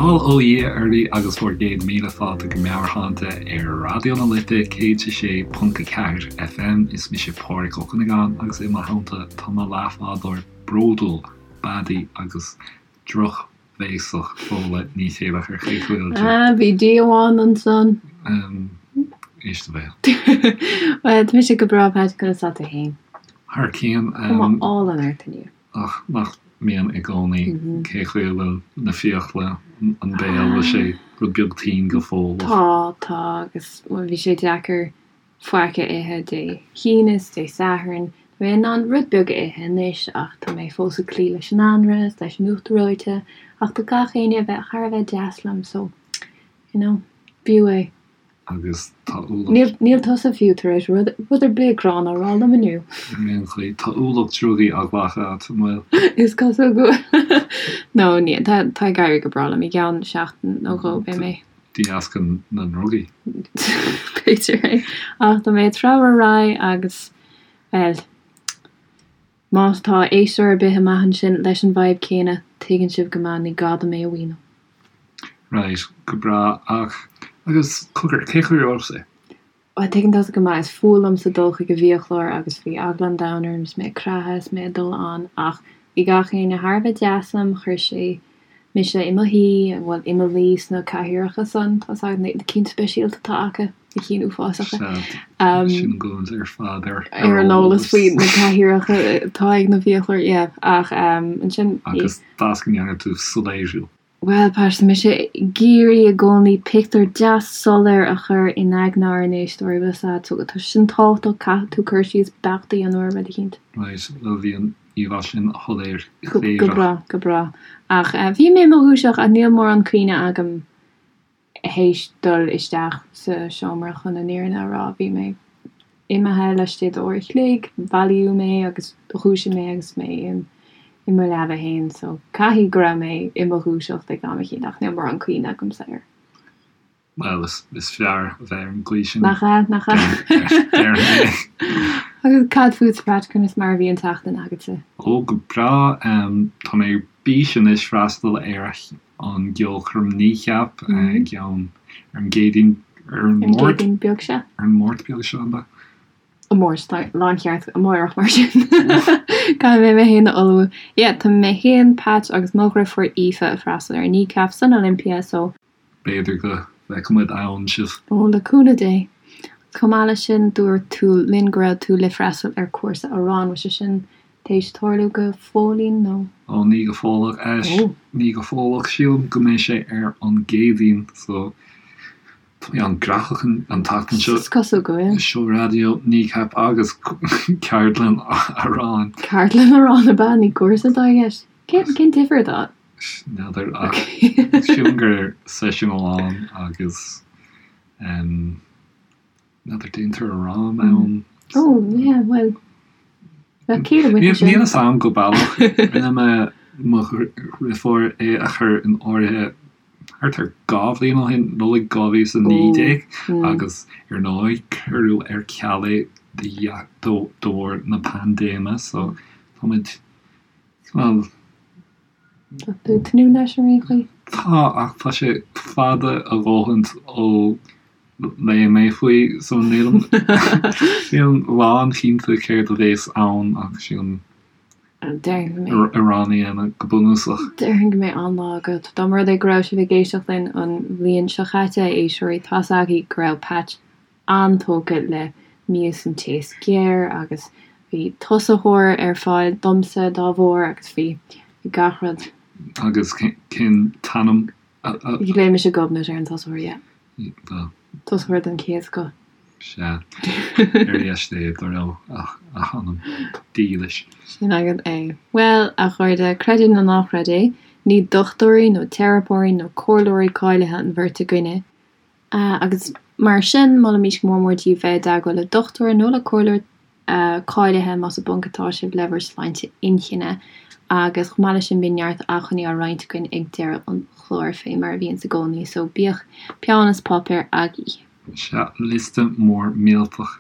Bail ó Dhia oraibh agus bhur gcéad míle fáilte go Meabhairshláinte ar Raidió na Life 106.4 FM. Is mise Pádraig Ó Cuinneagáin agus i mo theannta tá mo leathbhádóir bródúil, beadaí agus drochbhéasach Fódhla Ní Chéilleachair. Cén chaoi a bhfuil tú? Ah, bhí D amháin ansan. Éist do bhéal. Bhuel, tá mise go breá, Pat, conas tá tú féin? Thar cionn. Cuma álainn ort inniu. Ach nach mbíonn i gcónaí, cén chaoi a bhfuil na fiacla, an béal, bhfuil sé rud beag tinn go fóill? Tá, tá, agus bhuel bhí sé deacair faic a ithe Dé hAoine is Dé Sathairn. Tá mé in ann rud beag a ithe anois ach tá mé fós ag cloí leis an anraith is leis an uachtar reoite ach tá gach éinne a bheith thar a bheith deas liom so, you know, b'fhiú é. agus tá ualach. Níl tusa fiú tar éis rud ar bith gránna a rá liom inniu. Ar aon chaoi, tá ualach drugaí á ghlacadh agat, an bhfuil? Is cosúil go bhfuil. No, níl. Tá ag éirí go breá liom. I gceann seachtain nó dhó beidh mé. De dheasca na ndrugaí. B'fhéidir é. Ach tá mé ag treabhadh ar aghaidh agus, bhuel, má tá éisteoir ar bith amach ansin leis an bhfadhb céanna, tuigeann sibh go maith, ní gá dom é a mhíniú. Right, go breá. Ach, agus, cogar, cén chaoi a raibh sé? Bhuel, tuigeann tusa go maith, is fuath liomsa dul chuig an bhfiaclóir agus bhí eagla an domhain orm is mé ag creathadh is mé ag dul ann ach bhí gach éinne thar a bheith deas liom, chuir sé mise i mo shuí, bhuel, i mo luí sna cathaoireacha san, tá 's agat, na cinn speisialta atá acu, na cinn uafásacha. Sea, sin an gcúint ar fad ar ar an eolas faoi na cathaoireacha atá ag na fiaclóirí, yeah, ach ansin. Agus d'fhás go ndearna tú soiléiriú. Bhuel, Pat, tá mise ag iarraidh i gcónaí pictiúr deas soiléir a chur in aigne ár n-éisteoirí, bhfuil 's a'd, so tá sin tábhachtach, caithfidh tú cur síos beacht a dhéanamh ar rud eicínt. Right, bhuel bhí an íomhá sin shoiléir Go breá, go breá. Ach bhí mé i mo dhúiseacht ach níl mórán cuimhne agam théis dul isteach sa seomra chun an fhírinne a rá, bhí mé imithe laistigh d'uair a chloig, bailíodh mé agus dhúisigh mé agus mé i mo leaba fhéin so caithfidh go raibh mé i mo dhúiseacht ag am eicínt ach níl mórán cuimhne agamsa air. Bhuel, is fearr a bheith ar an gcaoi sin. Nach ea, nach ea. Déarfainn é. Agus cad fútsa, Pat, conas mar a bhí an tseachtain agatsa? Ó, go breá. Tá mé ar bís anois freastal ar an gceolchoirm Kneecap i gceann ar an gCéadaoin ar an Máirt. An Céadaoin beag seo. Ar an Máirt beag seo, ab ea? An Mháirt, tá láncheart amárach mar sin. Caithfidh mé mé féin a ullmhú. Yeah, tá mé féin, Pat agus mo dhriofúr Aoife ag freastal ar Kneecap san Olympia so. B'fhéidir go bhfeicfidh muid ann sibh. Ó, le cúnamh Dé. Chomh maith leis sin, dúirt tú linn go raibh tú le freastal ar cúrsa amhrán, bhfuil sé sin Théis tarlú go fóillín nó? Ó ní go fóilleach. Ó. Ní go fóilleach. Sílim go mbeidh sé ar an gCéadaoin so tá mé an-ghnóthach an tseachtain seo. Is cosúil go bhfuil. Seó raidió, Kneecap agus ceardlann amhráin. Ceardlann amhráin ab ea? Ní cúrsa atá i gceist? Cén cén difear atá ann? N'fheadar ach sílim gur seisiún amháin agus N'fheadar déantar arán ann. Oh yeah, bhuel, bheadh ciall amuigh ansin. Níl fhios a'm go baileach. Rinne mé mo dhriofúr é a chur in áirithe thart ar 2 bhliain ó shin, Nollaig 2019, agus ar ndóigh cuireadh ar ceal é de bharr na paindéime so táimid cineál Tá tú ag tnúth leis ar aon chaoi? Tá, ach tá sé fada a dhóthaint ó léigh mé faoi, so nílim nílim lánchinnte céard a bhéas ann ach sílim amhrán a dhéanamh go bunúsach. Déarfainn go mbeidh an-lá agat. Dá mba rud é go raibh sibh ag éisteacht linn an bhliain seo chaite, a éisteoirí, tá's agaibh go raibh Patch an-tógtha le mias an taos géar agus bhí tosaitheoir ar fáil domsa dá bharr agus bhí gach rud. Agus cén t-ainm a. Ghlaoigh mise Gobnait ar an tosaitheoir, yeah. Bhuel. Tosaitheoir den chéad scoth. Sea. Ar dheis Dé dá raibh a hanam dílis. Sin agat é. Bhuel, a chairde, creid é nó ná creid é, ní dochtúirí nó teiripeoirí nó comhairleoirí cáilithe an bheirt againne, Agus mar sin, molaimís go mór mór daoibh bheith i dteagmháil le dochtúir nó le comhairleoir cáilithe más i bponc atá sibh le bhur sláinte inchinne. Agus chomh maith leis sin, bíonn neart acmhainní á roinnt againn ag deireadh an chláir, fé mar a bhíonns i gcónaí, so bíodh peann is páipéar agaibh. Sea, liosta mór millteach.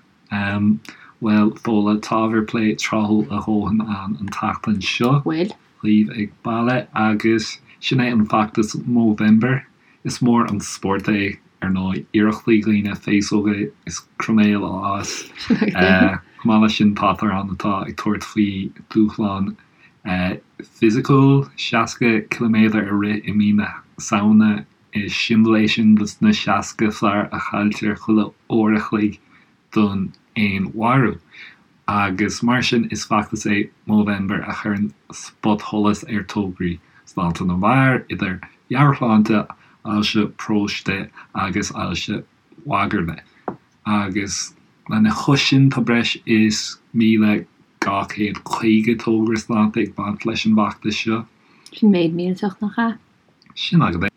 Bhuel, Fódhla, tá ábhar plé tráthúil a dhóthain ann an tseachtain seo. Bhfuil. Daoibh ag baile agus. Sin é an feachtas Movember. Is mór an spórt é, ar ndóigh, iarrachtaí dhaoine féasóga is croiméil a fhás. Chomh maith leis sin, táthar ann atá ag tabhairt faoi dúshlán fisiciúil, 60 ciliméadar a rith i mí na Samhna. Is siombail é sin dos na 60 fear a chailltear chuile uair a chloig don fhéinmharú. Agus mar sin is feachtas é Movember a chuireann spotsholas ar tograí sláinte na bhfear, idir mheabhairshláinte, ailse próstáite agus ailse mhagairle. Agus lena chois sin tá breis is 1,250 togra sláinte ag baint leis an bhfeachtas seo. Sin méid millteach, nach ea? Sin agat é.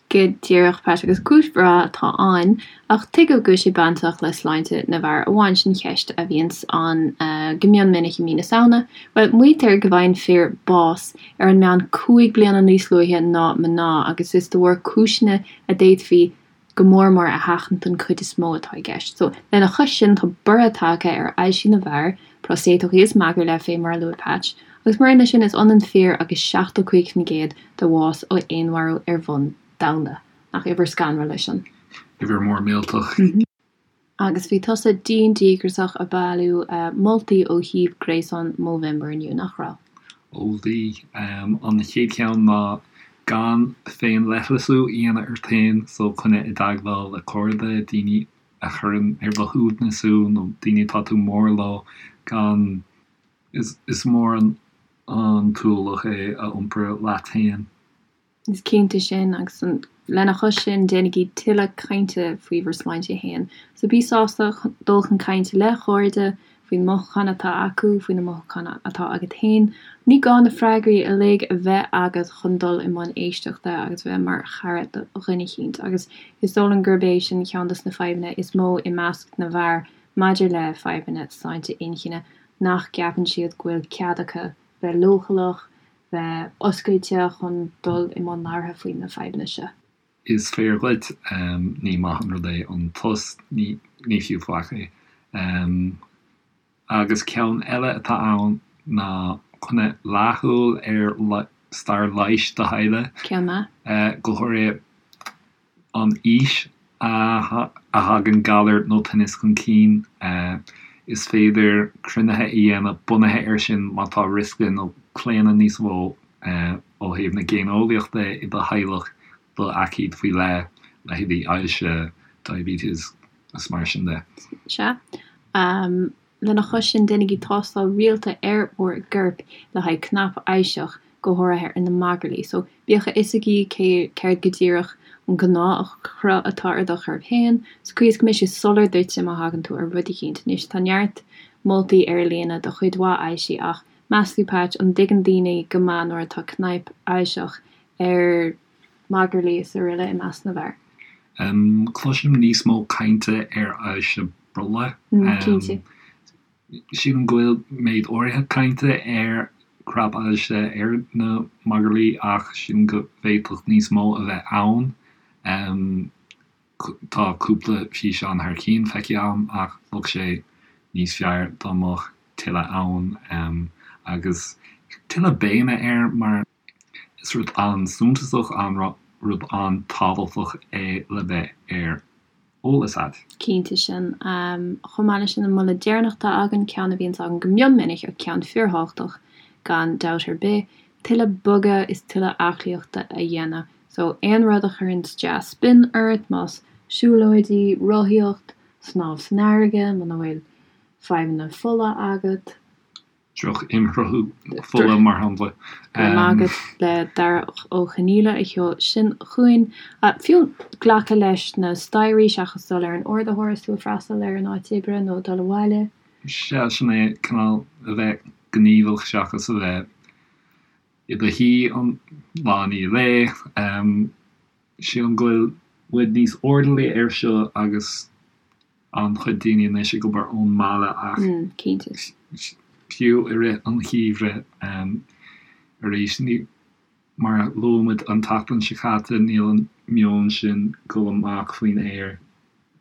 Go díreach, Pat, agus cúis bhreá atá ann, ach tuige go bhfuil sé bainteach le sláinte na bhfear amháin, sin ceist a bhíonns ann go mion minic i mí na Samhna. Bhuel, maítear go bhfaigheann fir bás ar an meán 5 bliana níos luaithe ná mná agus is de bharr cúiseanna a d'fhéadfaí go mór mór a sheachaint don chuid is mó atá i gceist. So, lena chois sin, tá borradh tagtha ar ailsí na bhfear, próstatach is magairle, fé mar a luaigh Patch, agus maraon leis sin, is ionann fir agus 75% de bhás ó fhéinmharú ar bhonn domhanda. Nach uimhir scanrúil é sin? Uimhir mór millteach. Agus bhí tusa dian díograiseach ag bailiú moltaí ó shuíomh gréasáin Movember inniu, nach raibh? Ó bhí. An chéad cheann ná gan féinleithleasú a dhéanamh ort féin, so coinnigh i dteagmháil le cairde, daoine a chuireann ar do shuaimhneas thú nó daoine atá tú mór leo, gan, is mór an t-ualach é a iompar leat féin. Is cinnte sin, agus lena chois sin, déanaigí tuilleadh cainte faoi bhur sláinte féin. So bí sásta dul chun cainte le cairde faoi na mothúcháin atá acu, faoi na mothúcháin atá agat féin. Ní gá na freagraí uilig a bheith agat chun dul i mbun éisteachta agus bheith mar chara do dhuine eicínt. Agus is dóigh liom gurb é sin ceann dos na fadhbanna is mó i measc na bhfear maidir le fadhbanna sláinte inchinne, nach gceapann siad go bhfuil cead acu bheith leochaileach, bheith oscailte chun dul i mbun labhartha faoi na fadhbanna seo. Is fíor dhuit, ní maith an rud é an tost, ní fiú faic é. Agus ceann eile atá ann ná coinnigh leathshúil ar stair leighis do theaghlaigh. Ceann maith. Go háirithe an aois a thagann galar nó tinneas chun cinn. Is féidir cruinnithe a dhéanamh bunaithe air sin má tá riosca nó claonadh níos mó ó thaobh na géineolaíochta i do theaghlach do aicíd faoi leith, leithéidí ailse, diabetes is mar sin de. Sea. Lena chois sin, déanaigí tástáil rialta ar bhur gcorp le haghaidh cnap ailseach, go háirithe ar na magairlí. So, bíodh a fhios agaibh cé, céard go díreach an gnáthchruth atá ar do chorp féin, sa chaoi is go mbeidh sé soiléir duitse má thagann tú ar rud eicínt. Anois, tá neart moltaí ar líne do chuid mhaith ailsí ach, meas tú, Patch, an dtuigeann daoine go maith nuair atá cnaip ailseach ar magairlí is aroile i measc na bhfear? Cloisim níos mó cainte ar ailse brollaigh. Cinnte. Sílim go bhfuil méid áirithe cainte ar chnap-ailse ar na magairlí ach sílim go bhféadfadh níos mó a bheith ann. Tá cúpla físeán thar cionn feicthe agam ach bheadh sé níos fearr dá mbeadh tuilleadh ann agus tuilleadh béime air mar is rud an-suntasach, an-rud an-tábhachtach é le bheith ar eolas agat. Cinnte sin. Chomh maith leis sin, an moladh deireanach atá againn, ceann a bhíonns againn go mion minic ach ceann fíorthábhachtach gan dabht ar bith, tuilleadh bogadh is tuilleadh aclaíochta a dhéanamh. So, aon rud a chuireanns dea-spion ort, más siúlóidí, rothaíocht, snámh san fharraige, muna bhfuil fadhbanna fola agat. Droch-imshruthú fola, mar shampla. Go raibh maith agat le Darach Ó Conaola a sheol sin chugainn. Fiú glacadh leis na staighrí seachas dul ar an ardaitheoir is tú ag freastal ar an áit oibre nó ag dul abhaile. Sea, sin é, cineál a bheith gníomhach seachas a bheith i do shuí an lá i ndiaidh lae. Sílim go bhfuil muid níos airdeallaí air seo agus an-chuid daoine anois ag obair ón mbaile ach fiú i rith an gheimhridh arís, ní, mar a luaigh muid an tseachtain seo caite, níl an meon sin dul amach faoin aer,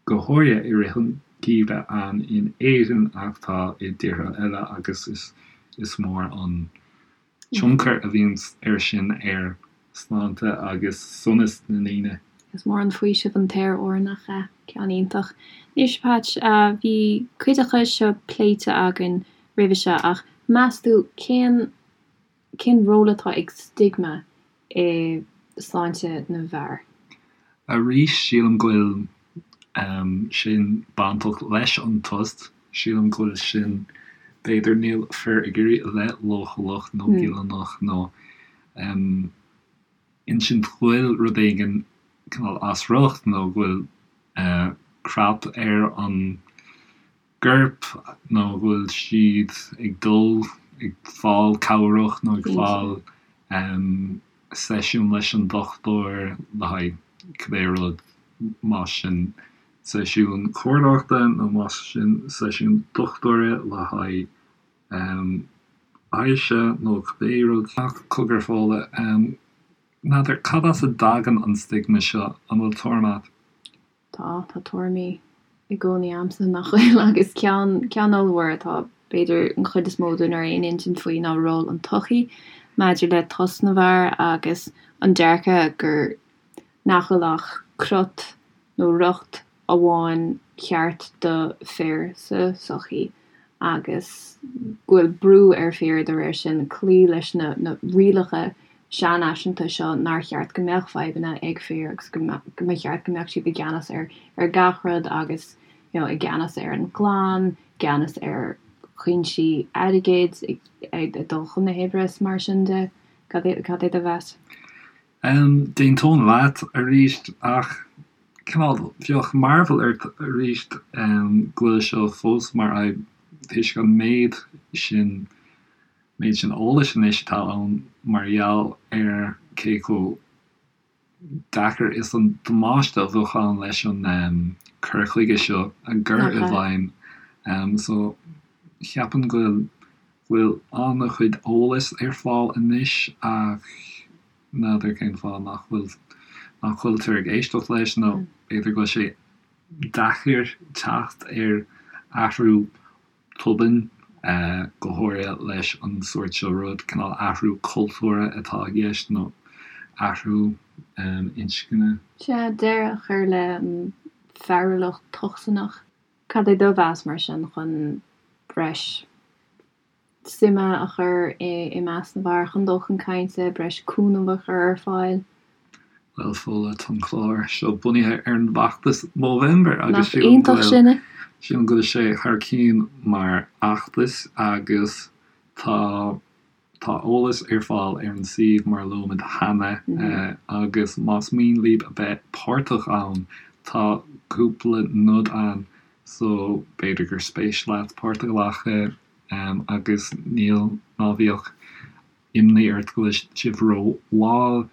go háirithe i rith an gheimhridh ann in Éirinn ach tá i dtíortha eile agus is mór an tionchar a bhíonn air sin ar. sláinte agus sonas na ndaoine. Is mór an faoiseamh an t-aer úr, nach ea? Ceann iontach. Anois, Patch, bhí cuid acu seo pléite againn roimhe seo ach meas tú cén cén ról atá ag stigma i sláinte na bhfear? Arís, sílim go bhfuil sin bainteach leis an tost. Sílim go bhfuil sin, b'fhéidir, níl fir ag iarraidh a bheith leochaileach nó goilliúnach nó insint go bhfuil rud éigin cineál as riocht nó go bhfuil crap ar an gcorp nó go bhfuil siad ag dul ag fáil cabhrach nó ag fáil seisiún leis an dochtúir le haghaidh cibé rud, más sin seisiún comhairleoireachta nó más sin seisiún dochtúra le haghaidh ailse nó cibé rud. Ach cogar Fódhla, n'fheadar cad as a dtagann an stigma seo, an bhfuil tuairim a't? Tá, tá tuairimí i gcónaí a'msa, nach bhfuil? Agus ceann, ceann ollmhór atá, b'fhéidir, an chuid is mó dúinn ar aon intinn faoi ná ról an tsochaí maidir le tost na bhfear agus an dearcadh gur, nach bhfuil ach crot nó riocht amháin ceart do fir sa tsochaí agus go bhfuil brú ar fir dá réir sin cloí leis na na rialacha seanfhaiseanta seo nár cheart go mbeadh fadhbanna ag fir agus go mba cheart go mbeadh siad i gceannas ar ar gach rud agus you know i gceannas ar an gclann, i gceannas ar chuinsí airgid, ag dul chun na hoibre is mar sin de. Cad é cad é do mheas? D'aontóinn leat arís ach cineál bheadh mearbhall ort arís go bhfuil seo fós mar fhadhb toisc an méid sin méid sin eolais anois atá ann mar gheall ar cé chomh deacair is an damáiste a bheadh ann leis an cur chuige seo a chur i bhfeidhm. So cheapfainn go bhfuil bhfuil an-chuid eolais ar fáil anois ach n'fheadar cén fáth nach bhfuil nach bhfuiltear ag éisteacht leis nó b'fhéidir go bhfuil sé deacair teacht ar athrú tobann, go háirithe leis an sórt seo rud, cineál athrú cultúrtha atá i gceist nó athrú inscne. Sea, deireadh a chur le fearúlacht tocsaineach. Cad é do mheas mar sin chun breis suime a chur i measc na bhfear chun dul chun cainte, breis cúnamh a chur ar fáil? Bhuel, Fódhla, tá an clár seo bunaithe ar an bhfeachtas Movember agus sílim go bhfuil, sílim go bhfuil sé thar cionn mar fheachtas agus tá, tá eolas ar fáil ar an suíomh mar a luaigh muid cheana agus más mian libh a bheith páirteach ann tá cúpla nod ann so b'fhéidir gur spéis leat páirt a ghlacadh agus níl, ná bíodh imní ort go bhfuil sibh ró-mhall.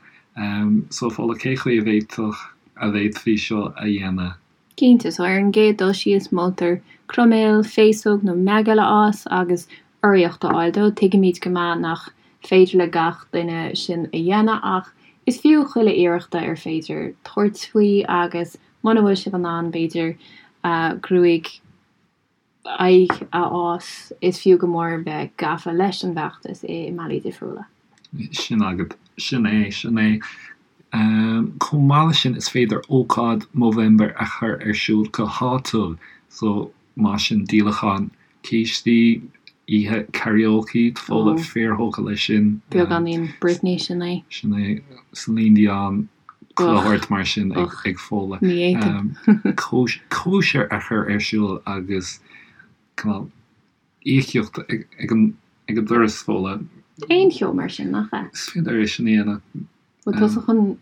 So Fódhla, cé chaoi a bhféadfadh, a bhféadfaí seo a dhéanamh? Cinnte, so ar an gcéad dul síos moltar croiméal, féasóg nó meigeall a fhás agus urraíocht a fháil dó. Tuigimid go maith nach féidir le gach duine sin a dhéanamh ach is fiú chuile iarracht ar féidir tabhairt faoi agus muna bhfuil sibh in ann b'fhéidir gruaig aghaidh a fhás, is fiú go mór bheith gafa leis an bhfeachtas i mbealaí difriúla. Sin agat. Sin é. Sin é. Chomh maith leis sin, is féidir ócáid Movember a chur ar siúl go háitiúil. So, más sin díolachán cístí, oíche karaoke, tá Fódhla fíorthógtha leis sin. Beagáinín Britney, sin é. Sin é. Celine Dion, chuile shórt mar sin ag Fódhla. Ní fhéadfainn. Cóisir a chur ar siúl agus cineál íocaíocht ag an doras, Fódhla. Aon cheo mar sin, nach ea? Is féidir é sin a dhéanamh. Bhfuil tusa chun,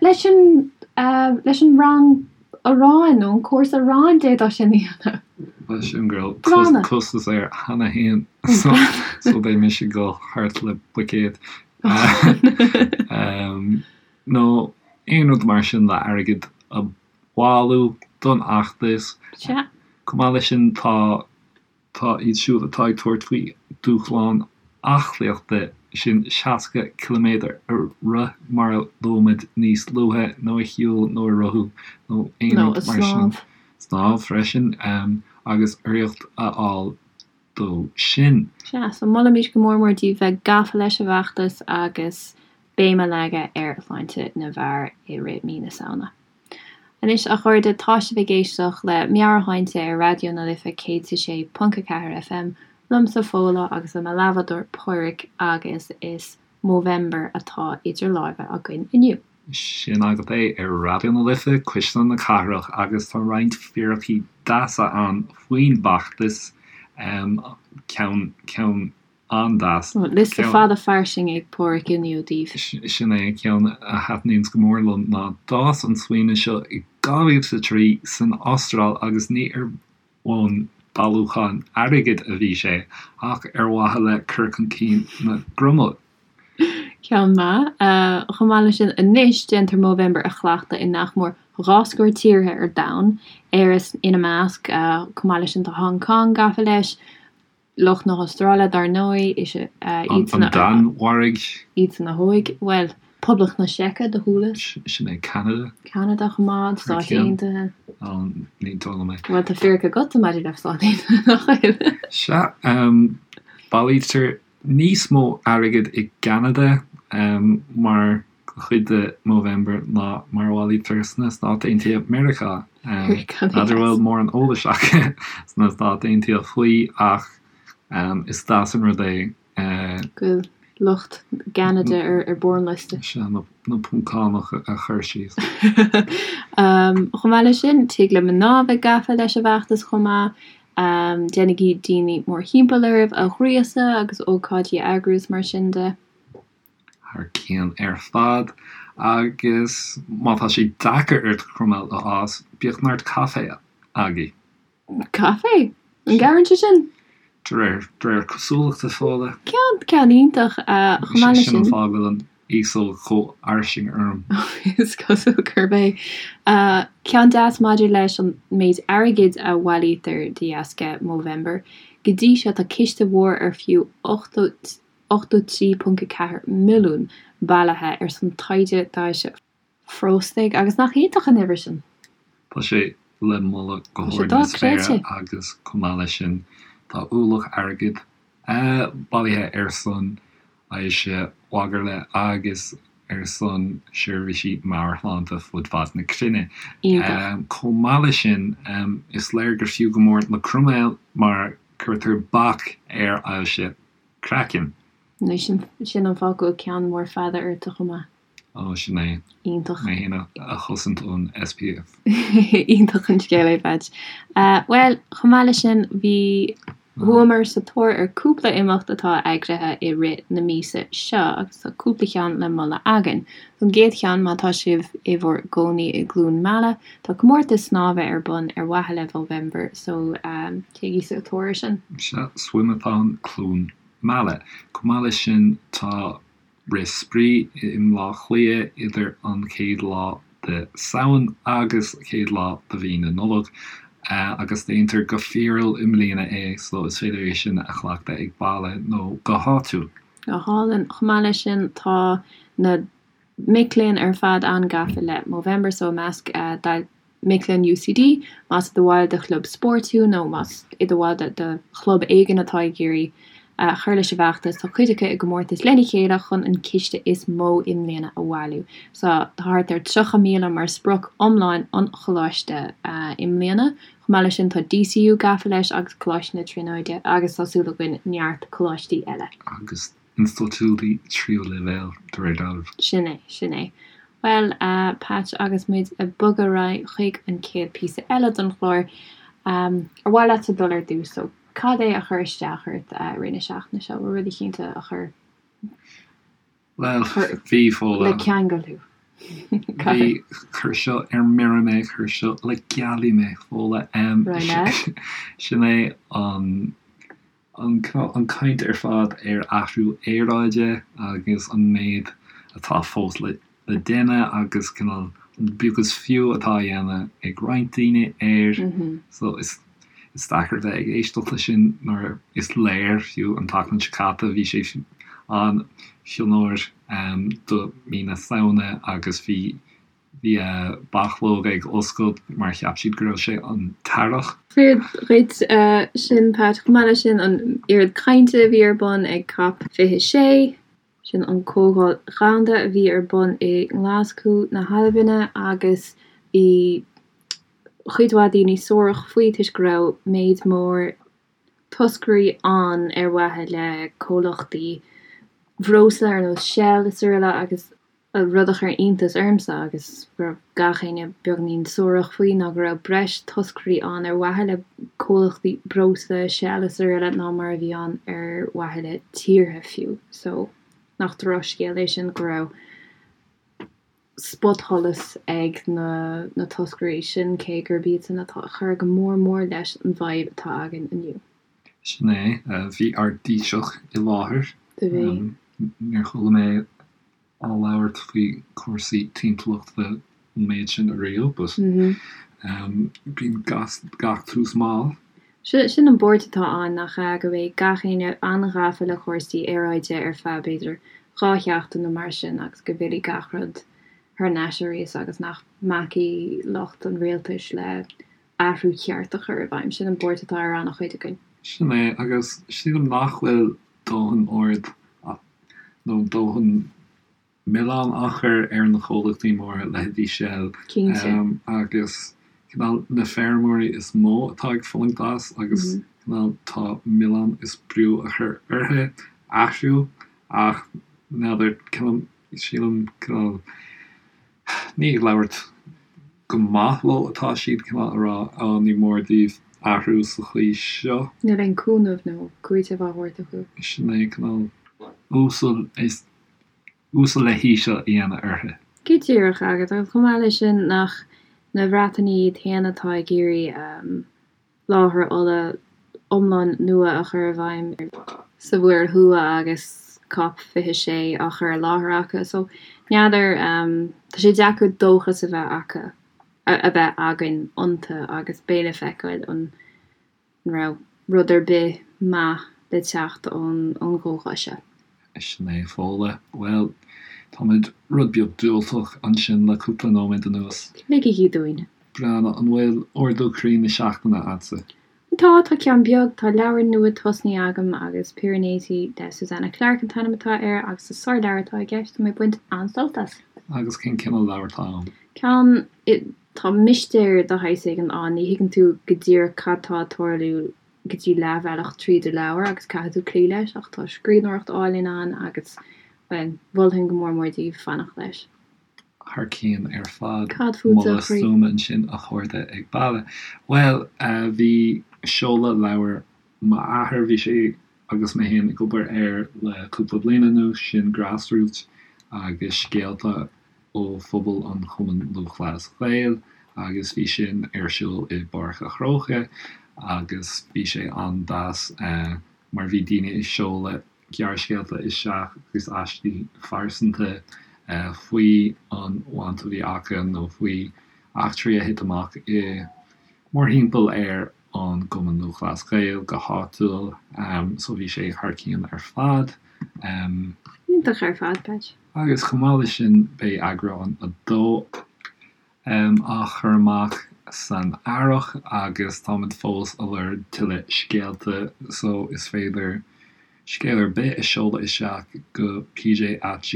leis an, leis an rang aráin nó an cúrsa aráin d'fhéadfá sin a dhéanamh. Bhuel sin go raibh costas air cheana féin so beidh mise ag dul thart le buicéad. Nó aon rud mar sin le airgead a bhailiú don fheachtas. Sea. Chomh maith leis sin tá tá iad siúd atá ag tabhairt faoi dúshlán aclaíochta, sin 60 ciliméadar a rith mar a luaigh muid níos luaithe, nó a shiúl nó a rothú nó aon rud mar sin. Snámh freisin agus urraíocht a fháil dó sin. Sea, so molaimid go mór mór daoibh bheith gafa leis an bhfeachtas agus. béim a leagadh ar shláinte na bhfear i rith mí na Samhna. Anois, a chairde, tá sibh ag éisteacht le Meabhairshláinte ar Raidió na Life 106.4 FM, liomsa Fódhla agus le mo leathbhádóir Pádhraic agus is Movember atá idir láimhe againn inniu. Sin agat é ar Raidió na Life, Cuisle na Cathrach agus tá roinnt fíricí deasa ann faoin bhfeachtas, ceann, ceann an-deas. Liosta fada fairsing ag Pádhraic inniu daoibh. Sin é an ceann a thaitníonns go mór liom ná d'fhás an smaoineamh seo i 2003 san Astráil agus ní ar bhonn bailiúchán airgid a bhí sé ach ar mhaithe le cur chun cinn na gcroiméal. Ceann maith. Chomh maith leis sin, anois déantar Movember a chleachtadh i nach mór dhá scór tíortha ar domhan, Éire ina measc. Chomh maith leis sin tá Hong Kong gafa leis, Lucht na hAstráile, dar ndóigh, is ea iadsan a. An Danmhairg. Iadsan a thóig, bhuel, Poblacht na Seice, do chualas. Sin é Ceanada. Ceanada chomh maith, an Stáit Aontaithe. Ó, ní dóigh liom é. Bhuel, tá fíric agatsa maidir le Stáit Aontaithe, nach bhfuil? Sea, bailítear níos mó airgid i gCeanada mar chuid de Movember ná mar a bhailítear sna Stáit Aontaithe Meiriceá. N'fheadar an bhfuil mórán eolais acu sna Stáit Aontaithe faoi ach is deas an rud é. Go bhfuil lucht Cheanada ar bharr an liosta. Sea, na Poncánach a chur síos. Chomh maith leis sin, tig le mná a bheith gafa leis an bhfeachtas chomh maith. Déanaigí daoine mórthimpeall oraibh a ghríosadh agus ócáidí a eagrú is mar sin de. thar cionn ar fad agus má tá sé deacair ort croiméal a fhás, bíodh neart caife agaibh. Caife? An gcabhraíonn sé sin? De réir, de réir cosúlachta, Fódhla. Ceann, ceann iontach. Chomh maith leis sin. Sin an fáth go bhfuil an fhéasóg chomh fhairsing orm. Is cosúil gurb é. Ceann deas maidir leis an méid airgid a bhailítear de dheasca Movember. Go dtí seo tá ciste mhór ar fiú 80. 83.4 milliún bailithe ar son taighde d'ailse phróstaid agus nach iontach an uimhir sin? Tá sé le moladh go hard na spéire agus chomh maith leis sin tá ualach airgid bailithe ar son ailse mhagairle agus ar son seirbhísí meabhairshláinte fud fad na cruinne. Chomh maith leis sin is léir gur fiú go mór na croiméil mar cuirtear bac ar ailse Craiceann. Anois, sin an fáth go bhfuil ceann mór fada ortsa chomh maith. Ó, sin é. Iontach. Mé féin a chosaint ón SPF. Iontach an scéal é, Patch. Bhuel, chomh maith leis sin, bhí, chuamar sa tóir ar cúpla imeacht atá eagraithe i rith na míosa seo agus tá cúpla cheann le moladh againn. An gcéad cheann, má tá sibh i bhur gcónaí i gCluain Meala, tá comórtas snámha ar bun ar mhaithe le Movember so téigí sa tóir air sin. Sea, Swimathon Cluain Meala. Chomh maith leis sin tá Rith Spraoi i mBleá Cliath idir an chéad lá de Samhain agus chéad lá de mhí na Nollag agus déantar go fíorúil i mbliana é so is féidir é sin a chleachtadh ag baile nó go háitiúil. Go hálainn. Chomh maith leis sin tá na mic léinn ar fad an-gafa le Movember so i measc mic léinn UCD, más i do bhall de chlub spóirt thú nó más i do bhall de chlub éigin atá ag iarraidh cur leis an bhfeachtas, tá cuid acu i gcomórtas lena chéile chun an ciste is mó i mbliana a bhailiú. So tá thart ar 30,000 mar sprioc iomlán an choláiste i mbliana. Chomh maith leis sin tá DCU gafa leis agus Coláiste na Tríonóide agus tá súil againn neart coláistí eile. Agus institiúidí tríú leibhéal, de réir dealraimh. Sin é, sin é. Bhuel, a Patch, agus muid ag bogadh ar aghaidh chuig an chéad píosa eile den chlár, ar mhaith leatsa dul ar dtús? So, cad é a chuir isteach ort i rith na seachtaine seo? Bhfuil rud eicínt a chuir. Bhuel, bhí, Fódhla. Le ceangal thú. Bhí, chuir seo ar mire mé, chuir seo le gealaigh mé, Fódhla. Sin é an. An chaint ar fad ar athrú aeráide agus an méid atá fós le déanamh agus cineál an beag is fiú atá á dhéanamh ag roinnt daoine air. So is deacair bheith ag éisteacht leis sin nuair is léir, fiú an tseachtain seo caite, bhí sé an-fhionnuar do mí na Samhna agus bhí Bhí bachlóga ag oscailt mar cheap siad go raibh sé an t-earrach. Fíor dhuit sin, Pat. Chomh maith leis sin, an oiread cainte a bhí ar bun ag Cop 26. Sin an Comhdháil Dhomhanda a bhí ar bun i nGlaschú na hAlbaine agus bhí chuid mhaith daoine suarach faoi toisc go raibh méid mór toscairí ann ar mhaithe le comhlachtaí bhreosla ar nós Shell is araile agus rud a chuir iontas ormsa agus go raibh gach éinne beagainín suarach faoi ná go raibh breis toscairí ann ar mhaithe le comhlachtaí breosla, Shell is araile ná mar a bhí ann ar mhaithe le tíortha fiú. So, nach drochscéal é sin go raibh spotsholas ag na na toscairí sin cé gurb iadsan atá ag cur go mór mór leis an bhfadhb atá againn inniu. Sin é. Bhí ár dTaoiseach i láthair. Do bhí. Níor chuala mé á labhairt faoi chúrsaí timpeallachta an méid sin ariamh but bíonn gach tús mall. Sin an buairt atá ann, nach ea, go mbeidh gach éinne an-ghafa le cúrsaí aeráide ar feadh, b'fhéidir, 2 sheachtain nó mar sin agus go bhfillfidh gach rud thar n-ais arís agus nach mbacfaidh lucht an rialtais le athrú ceart a chur i bhfeidhm. Sin an buairt atá ar an-chuid againn. Sin é, agus sílim nach bhfuil dóthain aird nó dóthain milleán á chur ar na comhlachtaí móra, leithéidí Shell, Cinnte. agus cineál na feirmeoirí is mó atá ag fulaingt as agus cineál tá milleán is brú á chur orthu athrú ach n'fheadar, cineál, sílim cineál, ní ag labhairt go maith leo atá siad, cineál a rá, á ní mór daoibh athrú sa chaoi seo. Níl aon cúnamh nó cúiteamh á thabhairt acu. Sin é, cineál uasal is uasal le híseal a dhéanamh orthu. Go díreach agat, agus chomh maith leis sin, nach na Breatanaigh iad féin atá ag iarraidh láthair ola iomlán nua a chur i bhfeidhm sa Mhuir Thuaidh agus Cop 26 á chur i láthair acu. So, n'fheadar, tá sé deacair dóchas a bheith acu, a bheith againn iontu agus beidh le feiceáil an raibh rud ar bith maith le teacht ón gcomhdháil seo. Sin é, Fódhla. Bhuel, táimid rud beag diúltach ansin le cúpla nóiméad anuas. Ligigí dúinn. Breathnach, an bhfuil ardú croí na seachtaine a'dsa? Tá, tá ceann beag. Tá leabhar nua tosnaithe agam agus Piranesi le Susanna Clarke an t-ainm atá air agus is sárleabhar atá i gceist, tá mé ag baint an-sult as. Agus cén cineál leabhar atá ann? Ceann, tá mistéir de shaghas éigin ann, ní thuigeann tú go díreach cad tá ag tarlú go dtí leathbhealach tríd an leabhar agus caithfidh tú cloí leis ach tá scríbhneoireacht álainn ann agus, bhuel, mholfainn go mór mór daoibh fanacht leis. Thar cionn ar fad. Cad fútsa, a Moladh chroí? stuama ansin a chairde ag baile. Bhuel, bhí seoladh leabhar m'athar, bhí sé agus mé féin ag obair air le cúpla bliain anuas, sin Grassroots agus scéalta ó phobal an Chumainn Lúthchleas Gael agus bhí sin ar siúl i bPáirc a' Chrócaigh agus bhí sé an-deas mar bhí daoine ag seoladh gearrscéalta isteach agus aistí phearsanta faoi an bhaint a bhí acu nó faoi eachtraí a thit amach i mórthimpeall ar an gCumann Lúthchleas Gael go háitiúil. So bhí sé thar cionn ar fad. Iontach ar fad, Peait. Agus chomh maith leis sin beidh eagrán 2 á chur amach san earrach agus táimid fós ag lorg tuilleadh scéalta so is féidir scéal ar bith a seoladh isteach go pj at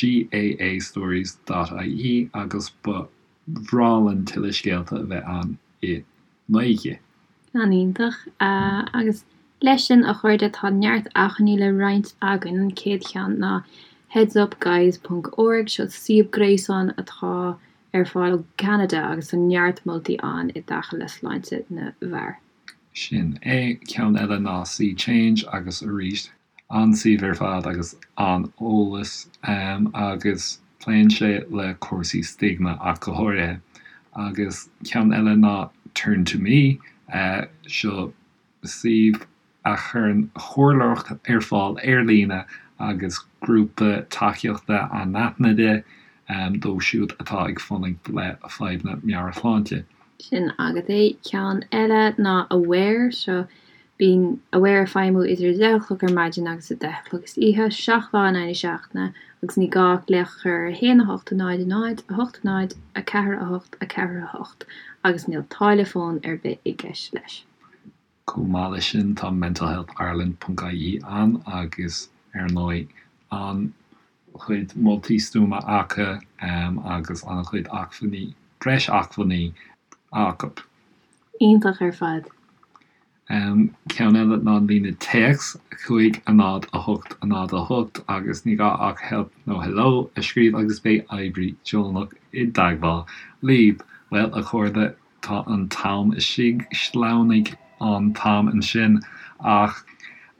gaastories dot ie agus ba bhreá linn tuilleadh scéalta a bheith ann i nGaeilge. An-iontach. Agus leis sin, a chairde, tá neart acmhainní le roinnt againn. An chéad cheann ná headsupguys ponc org, seo suíomh gréasáin atá ar fáil ó Cheanada agus tá neart moltaí ann i dtaca le sláinte na bhfear. Sin é. Ceann eile ná See Change agus arís An-suíomh ar fad agus an-eolas agus pléann sé le cúrsaí stigma ach go háirithe. Agus ceann eile ná Turn to Me, seo suíomh a chuireann comhairleoireacht ar fáil ar líne agus grúpa tacaíochta anaithnide dóibh siúd atá ag fulaingt le fadhbanna meabhairshláinte. Sin agat é. Ceann eile ná Aware, seo Bíonn Aware ag feidhmiú idir 10 a chlog ar maidin agus 10 a chlog istoíche, 7 lá in aghaidh na seachtaine, agus ní gá ach glaoch a chur ar 1 8 0 0 8 0 4 8 4 8 agus níl táille fóin ar bith i gceist leis. Chomh maith leis sin tá mentalhealthireland ponc ie ann agus ar ndóigh. An-chuid moltaí stuama acu agus an-chuid acmhainní, breis acmhainní acu. Iontach ar fad. Ceann eile ná an líne téacs, 5 0 8 0 8 agus ní gá ach help nó hello a scríobh agus beidh oibrí deonach i dteagmháil libh. Bhuel, a chairde, tá an t-am istigh, shleamhnaigh an t-am ansin ach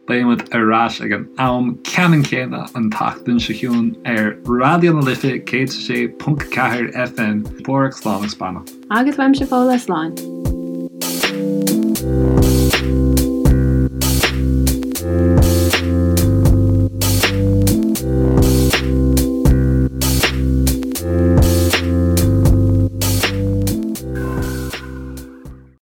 beidh muid ar ais ag an am ceannann céanna an tseachtain seo chugainn ar Raidió na Life 106.4 FM. Páraic, slán agus beannacht. Agus uaimse Fódhla, slán.